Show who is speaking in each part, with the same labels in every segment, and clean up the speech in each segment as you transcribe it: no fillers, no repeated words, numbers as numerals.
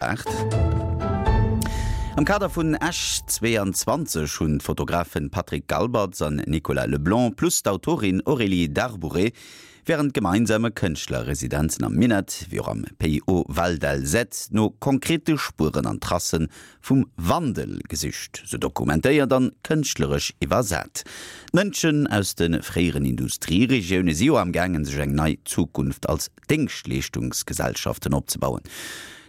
Speaker 1: 8. Am Kader vun Esch 22 hunn d'Fotografen Patrick Galberts an Nicolas Leblanc plus d'Autorin Aurélie Darbouret wärend gemeinsame Kënschtlerresidenzen am Minett wéi och am Pays Haut Val d'Alzette no konkrete Spueren an Tracen vum Wandel gesicht, se dokumentéiert an kënschtleresch iwwersat. D'Mënschen aus de fréieren Industrieregioune si jo am gaangen sech eng nei Zukunft als Déngschtleeschtungsgesellschaften opzebauen.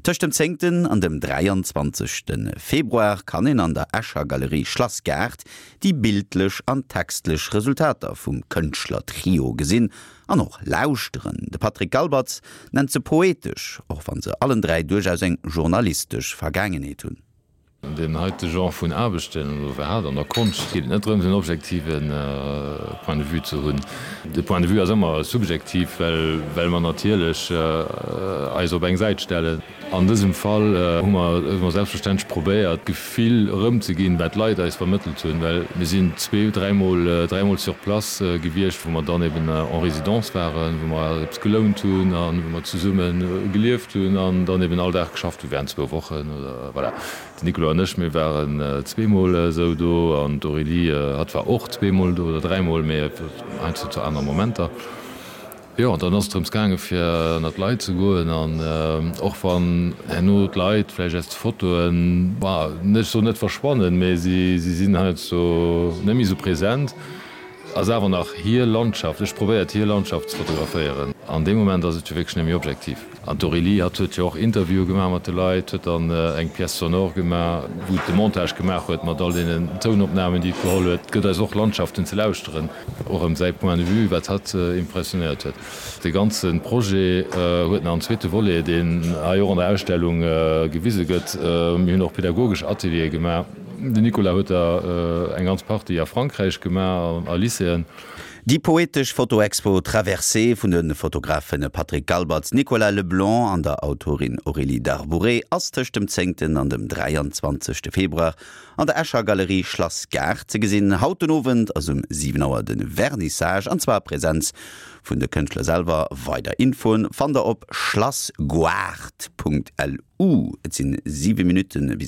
Speaker 1: Tëscht dem zéngten an dem 23. Februar kann een an der Escher Galerie Schlassgaart déi bildlech an textlech Resultater vum Kënschtler-Trio gesinn an och lauschteren. De Patrick Galbertz nennt se poetesch, och wann se allen 3 duerchaus eng journalistesch Vergaangenheet hunn.
Speaker 2: An deem heite Genre vun Aarbechten, oder iwwerhaapt an der Konscht, geet et net drëms, en objektive Point de vue ze hunn. De Point de vue ass ëmmer subjektiv, well well mer natierlech eis op eng Säit stellen. An dësem Fall hu mer hu mer selbstverständlech probéiert, d'Gefill erëmzeginn, wat d'Leit eis vermëttelt hunn, well mir sinn zwee-, dräimol, dräimol sur place gewiescht, wou mer dann eben en résidence waren, wou mer eppes gelount hunn a wou mer zesumme gelieft hunn an dann eben all Dag geschafft hu während zwou Wochen oder. Voilà, den Nicolas an ech, mir waren zweemol esou do an d'Aurélie, hatt war och zweemol do oder dräimol, mee heiansdo zu anere Momenter. Jo, an dann ass et drëms gaange fir ënner d'Leit ze goen an och wann herno d'Leit vläicht aus de Fotoen, bah, ech soen net verschwannen, mee si sinn heiansdo net méi esou present, Ass awer nach hir Landschaft. Ech probéiert hir Landschaft ze fotograféieren. An deem Moment ass et jo wierklech net méi objektiv. An d'Aurélie, hatt huet jo och Interviewe gemaach mat de Leit, huet dann eng Pièce sonore gemaach, wou et de Montage gemaach huet mat all deenen Tounopnamen, déi et geholl huet. Et gëtt eis och Landschaften ze lauschteren, och ëm säi Point de vue, wat hatt impressionéiert huet. De ganze Projet huet nach en zweete Volet, deen hei och an der Ausstellung gewise gëtt. Mir hunn och pedagogesch Ateliere gemaach. Den Nicolas huet der eng ganz Partie a Frankräich gemaach, a Lycéeën.
Speaker 1: Déi poetesch Fotoexpo Traversée vun de Fotografe Patrick Galbertz, Nicolas Leblanc an der Autorin Aurélie Darbouret ass tëscht dem zéngten an dem 23. Februar an der Escher Galerie Schlass Gaart ze gesinn. Haut den Owend ass um 7 Auer de Vernissage, an zwar a Präsenz vun de Kënschtler selwer. Weider Infoen fannt der op schlassgoart.lu. Et sinn 7 Minutten bis.